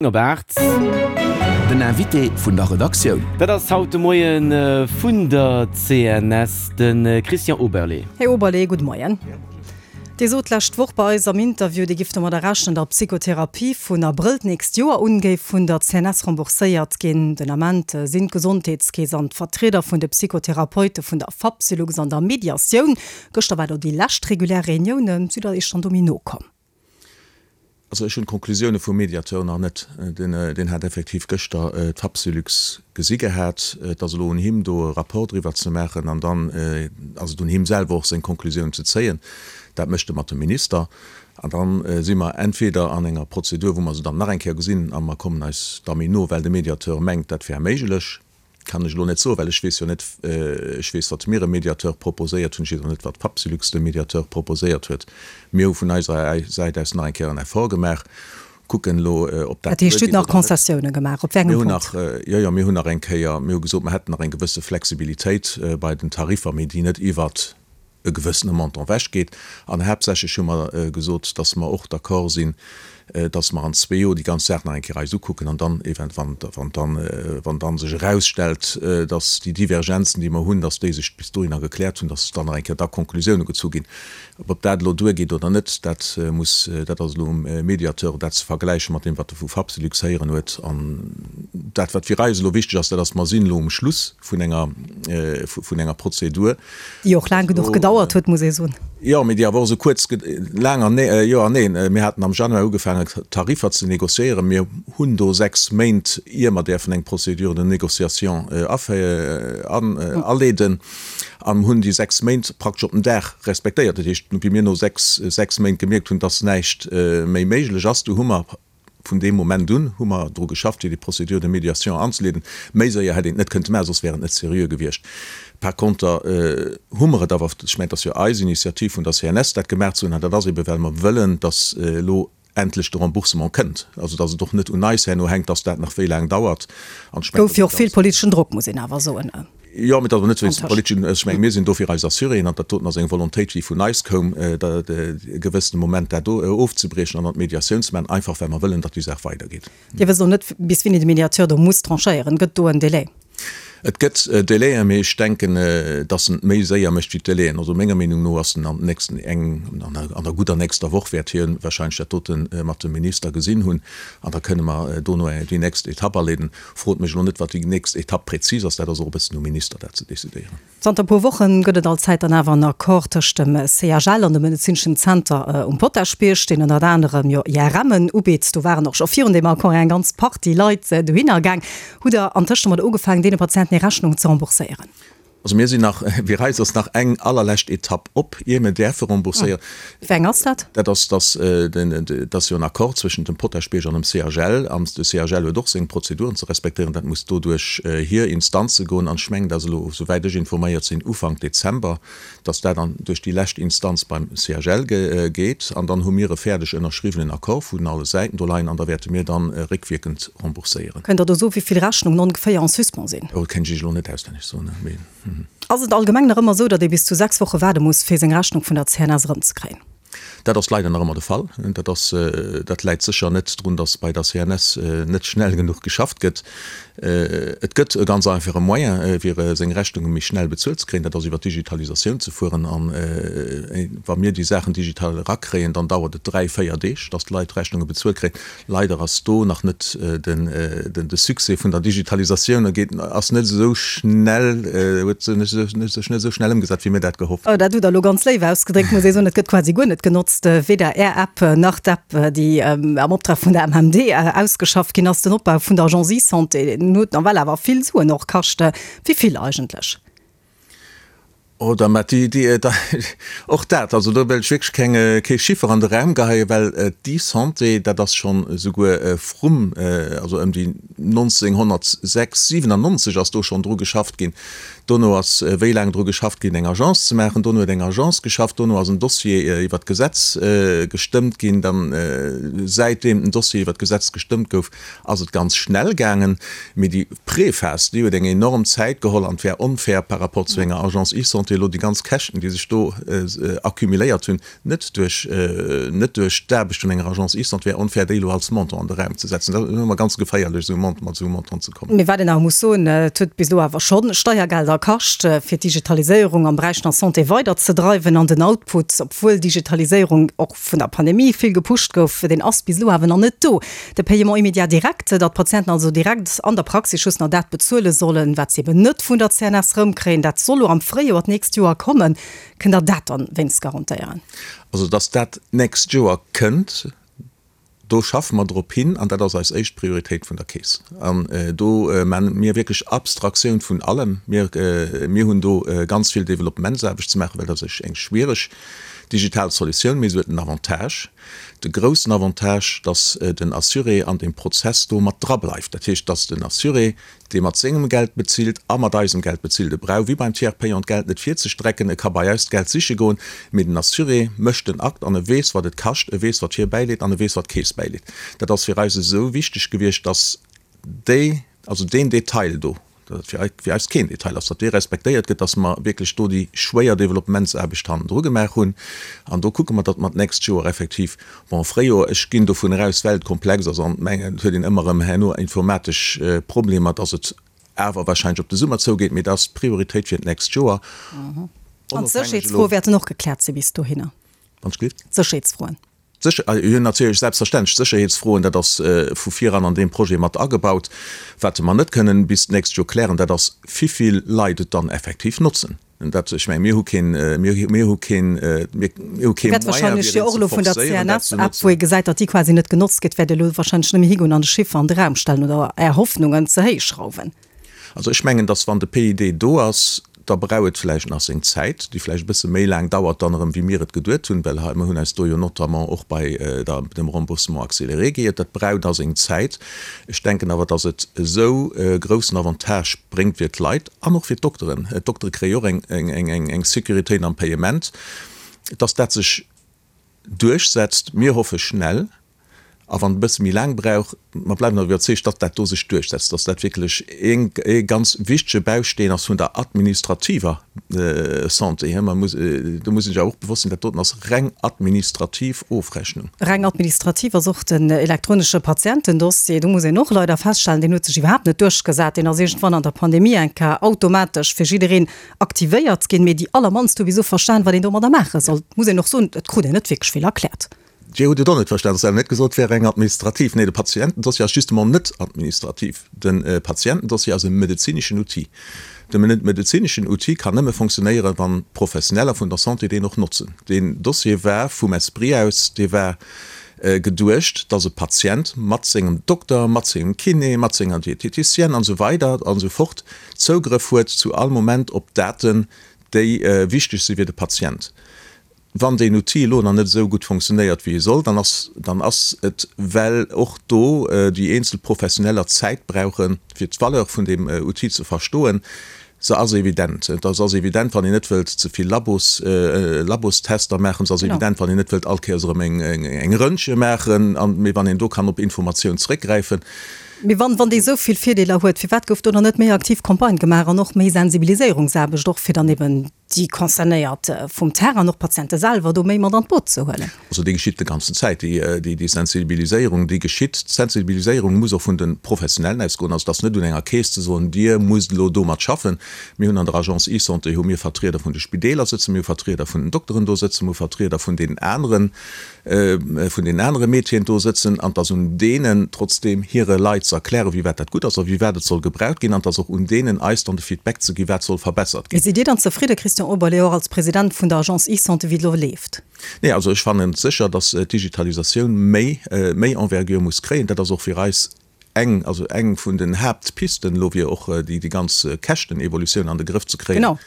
Op 8. Den Invité vun der Redaktioun. Dat ass haut de Moie vun der CNS, de Christian Oberlé. Här Oberlé, gudde Moien. Dir sot d'lescht Woch bei eis am Interview, Dir gifft domadder rechnen, datt d'Psychotherapie vun Abrëll d'nächst Joer un géif vun der CNS rembourséiert ginn. Den Ament sinn d'Gesondheetskeess an d'Vertrieder vun de Psychotherapeute vun der Fapsylux an der Mediatioun. Gëschter war do déi lescht regulär Reunioun. Sidd Der Iech dann do méi no komm? Also ech hunn d'Konklusioune vum Mediateur nach net. Deen hat effektiv gëschter d'Fapsylux gesi gehat. Et ass elo un him do e Rapport driwwer ze maachen an dann ass et un him selwer och seng Konklusioun ze zéien. Dat mécht e mat dem Minister an da si mer entweder an enger Prozedur wou mer se dann nach eng Kéier gesinn a mer kommen eis da méi no, well de Mediateur mengt dat wär méiglech. Kann ech elo net soen, well ech weess jo net, ech weess, wat mir e Mediateur proposéiert hunn, ech weess och net, wat d'Fapsylux dem Mediateur proposéiert huet. Mir hu vun eiser Säit aus nach eng Kéier en Effort gemaach, kucken elo, ob dat Dat heescht, Dir hutt duergeet nach oder net. Concessiounen gemaach. Op wéi engem Mir hunn Punkt? nach, jo, jo, mir hunn nach eng Kéier, mir hu gesot, mer hätten nach eng gewësse Flexibilitéit bei den Tariffer, mee déi net iwwert e gewëssene Montant ewechgeet. An haaptsächlech hu mer gesot, dass mer och d'accord sinn, dass mer an zwee Joer déi ganz Saach nach eng Kéier eis ukucken an dann event-, wann, wann dann, wann dann sech erausstellt, dass déi Divergenzen, déi mer hunn, dass déi sech bis dohinner gekläert hunn, dass dann nach eng Kéier da Konklusiounen gezu ginn. Ob dat elo duergeet oder net, dat muss, dat ass elo um Mediateur, dat ze vergläiche mat deem, wat e vu Fapsylux héieren huet. An dat, wat fir eis elo wichteg ass, dat ass, mer sinn elo um Schluss vun enger, vun enger Prozedur. Déi och laang genuch gedauert huet, muss ee soen. Jo, mee déi awer och esou kuerz, laang an nee, jo an neen. Mir haten am Januar ugefaangen, Tariffer ze négociéieren. Mir hunn do 6 Méint, ier mer däerfen eng Procédure de négociation aleeden, an hunn déi 6 Méint praktesch op den Dag respektéiert. Dat heescht, wéi mir no 6, 6 Méint gemierkt hunn, dass näischt méi méiglech ass, du hu mer Vun deem Moment un hu mer dru geschafft, fir déi Procédure de médiation anzeleeden. Méi séier hätt een et net kënnte maachen, soss wär et net seriö gewiescht. Par conter hu mer et awer, ech mengen, et ass jo eis Initiativ vun der CNS, dat gemaach ze hunn, an dat ass ebe well mer wëllen, dass elo endlech de Remboursement kënnt, also dass et och net un eis herno hänkt, dass dat nach wéi laang dauert. An ech mengen, Gouf jo och vill politeschen Drock, muss een awer soen. Jo, mee dat ass net wéinst dem politeschen, ech menge mir sinn do fir eis Assuréen an dat doten ass eng Volontéit, déi vun eis koum, dat e gewëssene Moment dat do ofzebriechen an an d'Mediatioun ze maachen, einfach well mer wëllen, datt déi Saach weidergeet. Dir wësst och net, bis wéini de Mediateur do muss tranchéieren. Gëtt do en Délai? Et gëtt Délaien, mee ech denken, datt en et méi séier mécht wéi d'Délaien. Also menger Meenung no ass en an den nächsten eng, an der gudder nächster Woch wäert hie wahrscheinlech dat dote mat dem Minister gesinn hunn an da kënne mer dono déi nächst Etapp aleeden. Frot mech elo net, wat déi nächst Etapp präzis ass. Dat ass och e bëssen um Minister, dat ze decidéieren. Zanter e puer Woche gëtt et allzäit dann awer en Accord tëscht dem CHL an dem medezineschen Zenter um Potaschbierg, deen ënnert anerem jo IRMen ubitt. Do waren och scho virun deem Accord eng ganz Partie Leit dohinner gaang. Hutt Der antëscht domat ugefaangen, deene Patienten hir Rechnung ze rembourséieren? Also mir sinn nach, fir eis ass nach eng allerlescht Etapp op, ier mir däerfe rembourséieren. Wéi eng ass dat? Dat ass, dass den, et ass jo en Accord zwëschent dem Potaschbierg an dem CHL, an de CHL huet och seng Prozeduren ze respektéieren. Dat muss do duerch hir Instanze goen an ech mengen, dass elo, souwäit ech informéiert sinn, Ufank Dezember, dass dat an duerch déi lescht Instanz beim CHL geet an dann hu mir e fäerdeg ënnerschriwwenen Accord vun alle Säiten do leien an da wäerte mir dann réckwierkend rembourséieren. Kënnt Der do soen, wéi vill Rechnungen ongeféier en suspens sinn? Oh, dat kéint ech Iech elo net auswenneg soen, mee. Ass et allgemeng nach ëmmer esou, datt ee bis zu 6 Woche waarde muss, fir seng Rechnung vun der CNS erëmzekréien? Dat ass leider nach ëmmer de Fall. Dat ass, dat läit sécher net drun, datt bei der CNS net schnell genuch geschafft gëtt. Et gëtt e ganz einfache Moyen, fir seng Rechnunge méi schnell bezuelt ze kréien, dat ass iwwer d'Digitalisatioun ze fueren. A wa mir déi Saachen digital erakréien, dann dauert et dräi, véier Deeg, datt d'Leit d'Rechnunge bezuelt kréien. Leider ass do nach net de Succès vun der Digitalisatioun geet ass net esou schnell, huet sech net esou schnell ëmgesat, wéi mir dat gehofft hunn. Dat hutt Der elo ganz léif ausgedréckt, muss ee soen. Et gëtt quasi guer net genotzt, weder Är App nach d'App, déi am Optrag vun der MMD ausgeschafft ginn ass. Den Opbau vun der Agence eSanté, deen huet nawell awer vill Suen och kascht. Wéi vill eigentlech? Oder mä déi, déi, och dat, also do wëll ech wierklech keng, kee Chiffer an de Raum geheien, well d'eSanté, dat ass schonn esouguer vrum, also ëm déi 1996, 97 ass do schonn dru geschafft ginn. Dono ass wéi laang dru geschafft ginn, eng Agence ze maachen. Dono huet eng Agence geschafft. Dono ass en Dossier iwwert d'Gesetz gestëmmt ginn. Dann, säitdeem den Dossier iwwert d'Gesetz gestëmmt gouf, ass et ganz schnell gaangen, mee déi Préphase, déi huet eng enorm Zäit geholl an et wär onfair par rapport zu enger Agence eSanté. eSanté elo déi ganz Käschten, déi sech do accumuléiert hunn, net duerch, net duerch d'Aarbecht vun enger Agence eSanté, wär onfair, déi elo als Montant an de Raum ze setzen. Dat ass ëmmer ganz geféierlech, esou e mat esou e Montant ze kommen. Mee wat een awer muss soen, et huet bis elo awer scho Steiergelder kascht, fir d'Digitaliséierung am Beräich vun der Santé weiderzedreiwen. An den Output, obwuel Digitaliséierung och vun der Pandemie vill gepusht gouf, deen ass bis elo awer nach net do. De Paiement immédiat direct, datt d'Patienten also direkt an der Praxis just nach dat bezuele sollen, wat se eben net vun der CNS erëmkréien, dat soll elo am Fréijoer d'nächst Joer kommen. Kënnt Der dat dann wéinst garantéieren? Also, datt dat d'nächst Joer kënnt, do schaffe mer drop hin an dat ass eis éischt Prioritéit vun der Keess. An do maache mir wierklech Abstraktioun vun allem. Mir, mir hunn do ganz vill Developpementsaarbecht ze maachen, well dat ass eng schwiereg digital Solutioun, mee se huet en Avantage, de groussen Avantage, datt den Assuré an deem Prozess do mat drableift. Dat heescht, datt den Assuré dee mat sengem Geld bezilt a mat eisem Geld bezilt. E brauch wéi beim Tiers payant d'Geld net virzestrecken, e ka bei eis d'Geld siche goen, mee den Assuré mécht den Akt an e weess, wat et kascht, e weess, wat hie bäileet an e weess, wat d'Keess bäileet. Dat ass fir eis esou wichteg gewiescht, dass déi, also deen Detail do, dat fir fir eis keen Detail ass, datt dee respektéiert gëtt, dass mer wierklech do déi schwéier Developpementsaarbecht hannendru gemaach hunn. An do kucke mer, datt mer d'nächst Joer effektiv Bon, Fréijoer, ech ginn dovun eraus, well et komplex ass an mengen, et huet een ëmmer erëm herno informatesch Problemer, dass et awer wahrscheinlech op de Summer zougeet, mee dat ass d'Prioritéit fir d'nächst Joer. An d'Sécherheetsfroe wäerten och gekläert si bis dohinner? Wann ech gelift? D'Sécherheetsfroen. Jo, natierlech, selbstverständlech, d'Sécherheetsfroen, dat ass vu viran an deem Projet mat agebaut. Wat mer net kënnen bis d'nächst Joer klären, dat ass, wivill Leit et dann effektiv notzen. Dat, ech mengen, mir hu keen, mir, mir hu keen, mir hu kee Wäert Moyen, wahrscheinlech fir jo een och ze elo vun der forcéieren, dat ze CNS-App, notzen. wou ee gesäit, datt déi quasi net genotzt gëtt, wäert Dir elo wahrscheinlech net méi higoen an de Chiffer an de Raum stellen oder Är Hoffnungen ze héich schrauwen. Also ech mengen, datt wann de PID do ass, da brauch et vläicht nach seng Zäit, déi vläicht e bësse méi laang dauert dann erëm, wéi mir et geduet hunn, well hei, mir hunn eis do jo notamment och bei der, dem Remboursement accéléré geiert. Dat brauch da seng Zäit. Ech denken awer, datt et esou e groussen Avantage bréngt fir d'Leit, An och fir d'Dokteren. D'Doktere kréie jo och eng Sécuritéit am Payement, dass dat sech duerchsetzt. Mir hoffe schnell, a wann et e bësse méi laang brauch, mer bleiwen awer iwwerzeegt, datt dat do sech duerchsetzt, dass dat wierklech ee ganz wichtege Bausteen ass vun der administrativer Santé. Do muss ee sech awer och bewosst sinn, dat doten ass reng administrativ Ofrechnung. Reng administrativ ass och den elektronesche Patientendossier. Do muss een och leider feststellen, deen huet sech iwwerhaapt net duerchgesat. Deen ass iergendwann an der Pandemie eng Kéier automatesch fir jiddereen aktivéiert ginn. Mee déi allermannst hu bis elo verstan, wat een domadder maache soll. Et muss een och soen, et krut een net wierklech vill erkläert. Dir hutt et och net verstan. Et ass awer net gesot, et wär reng administrativ. Nee, de Patientendossier ass justement net administrativ. De Patientendossier ass e medezineschen Outil. De medezineschen Outil kann nëmme fonctionnéieren, wann d'Professioneller vun der Santé deen och notzen. Deen Dossier war vum Esprit aus, dee war geduecht, dass e Patient mat sengem Dokter, mat sengem Kiné, mat senger Diététicienne an esou weider an esou fort Zougrëff huet zu all Moment op Daten, déi wichteg si fir de Patient. Wann deen Outil elo nach net esou gutt funktionéiert, wéi e soll, dann ass, dann ass et, well och do déi eenzel Professioneller Zäit brauchen, fir d'Valeur vun deem Outil ze verstoen. Se ass evident. Et ass evident, wann een net wëllt ze vill Labos, Labostester maachen. Se ass evident, wann een net wëllt all Kéiers erëm eng, eng Röntge maachen, an, mee wann een do kann op Informatioun zréckgräifen. Mee wann, wann dee esou vill Virdeeler huet, firwat gouf do dann net méi aktiv Campagne gemaach an och méi Sensibiliséierungsaarbecht och, fir dann eben déi Concernéiert vum Terrain an och d'Patiente selwer do méi mat an d'Boot ze huelen. Also déi geschitt de ganzen Zäit, déi Sensibiliséierung, déi geschitt. D'Sensibiliséierung muss och vun de Professionellen ausgoen. Also et ass net un enger Keess ze soen, Dir musst elo domat schaffen. Mir hunn an der Agence eSanté hu mir Vertrieder vun de Spideeler sëtzen, mir hu Vertrieder vun den Dokteren do sëtzen, mir hu Vertrieder vun deenen aneren, vun deenen anere Métieren do sëtzen an et ass un deenen trotzdeem hire Leit ze erklären, wéi wat dat gutt ass a wéi wat et soll gebraucht ginn an et ass och un deenen eis dann de Feedback ze ginn, wat soll verbessert ginn. Sidd Dir dann zefridde, Christian Oberlé, och als President vun der Agence eSanté, wéi et elo leeft? Nee, also ech fannen sécher, datt d'Digitalisatioun méi, méi Envergure muss kréien. Dat ass och fir eis eng, also eng vun den Haaptpisten elo, fir och déi, déi ganz Käschtenevolutioun an de Grëff ze kréien. Genau.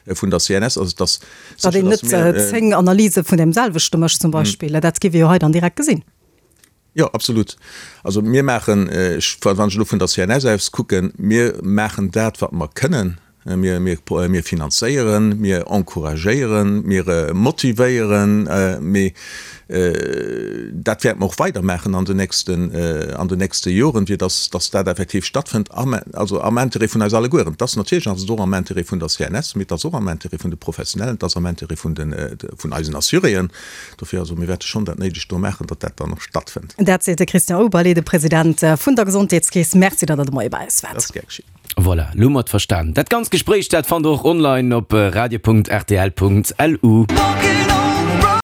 Vun der CNS. Also et ass Datt sécher, een datt net mir. 10 Analyse vun deem selwechte mécht zum Beispill, dat géif ee jo hei dann direkt gesinn. Jo, absolut. Also mir maachen, ech, wann ech elo vun der CNS aus kucken, mir maachen dat, wat mer kënnen. Mir, mir, mir finanzéieren, mir encouragéieren, mir motivéieren, mee dat wäerte mer och weidermaachen an den nächsten, an den nächste Joren, fir dass, dass dat effektiv stattfënnt, am, also am Intérêt vun eis allegueren. Et ass natierlech ass et och am Intérêt vun der CNS, mee et ass och am Intérêt vun de Professionellen, et ass am Intérêt vun den, vun eisen Assuréen. Dofir, also mir wäerte schonn dat Néidegt do maachen, datt dat dann och stattfënnt. Dat seet de Christian Oberlé, de President vun der Gesondheetskeess. Merci, datt Der de Moie bei eis waart. Dat ass gär geschitt. Voilà, lo hu mer et verstan. Dat ganzt Gespréich, dat fannt der och online op radio.rtl.lu.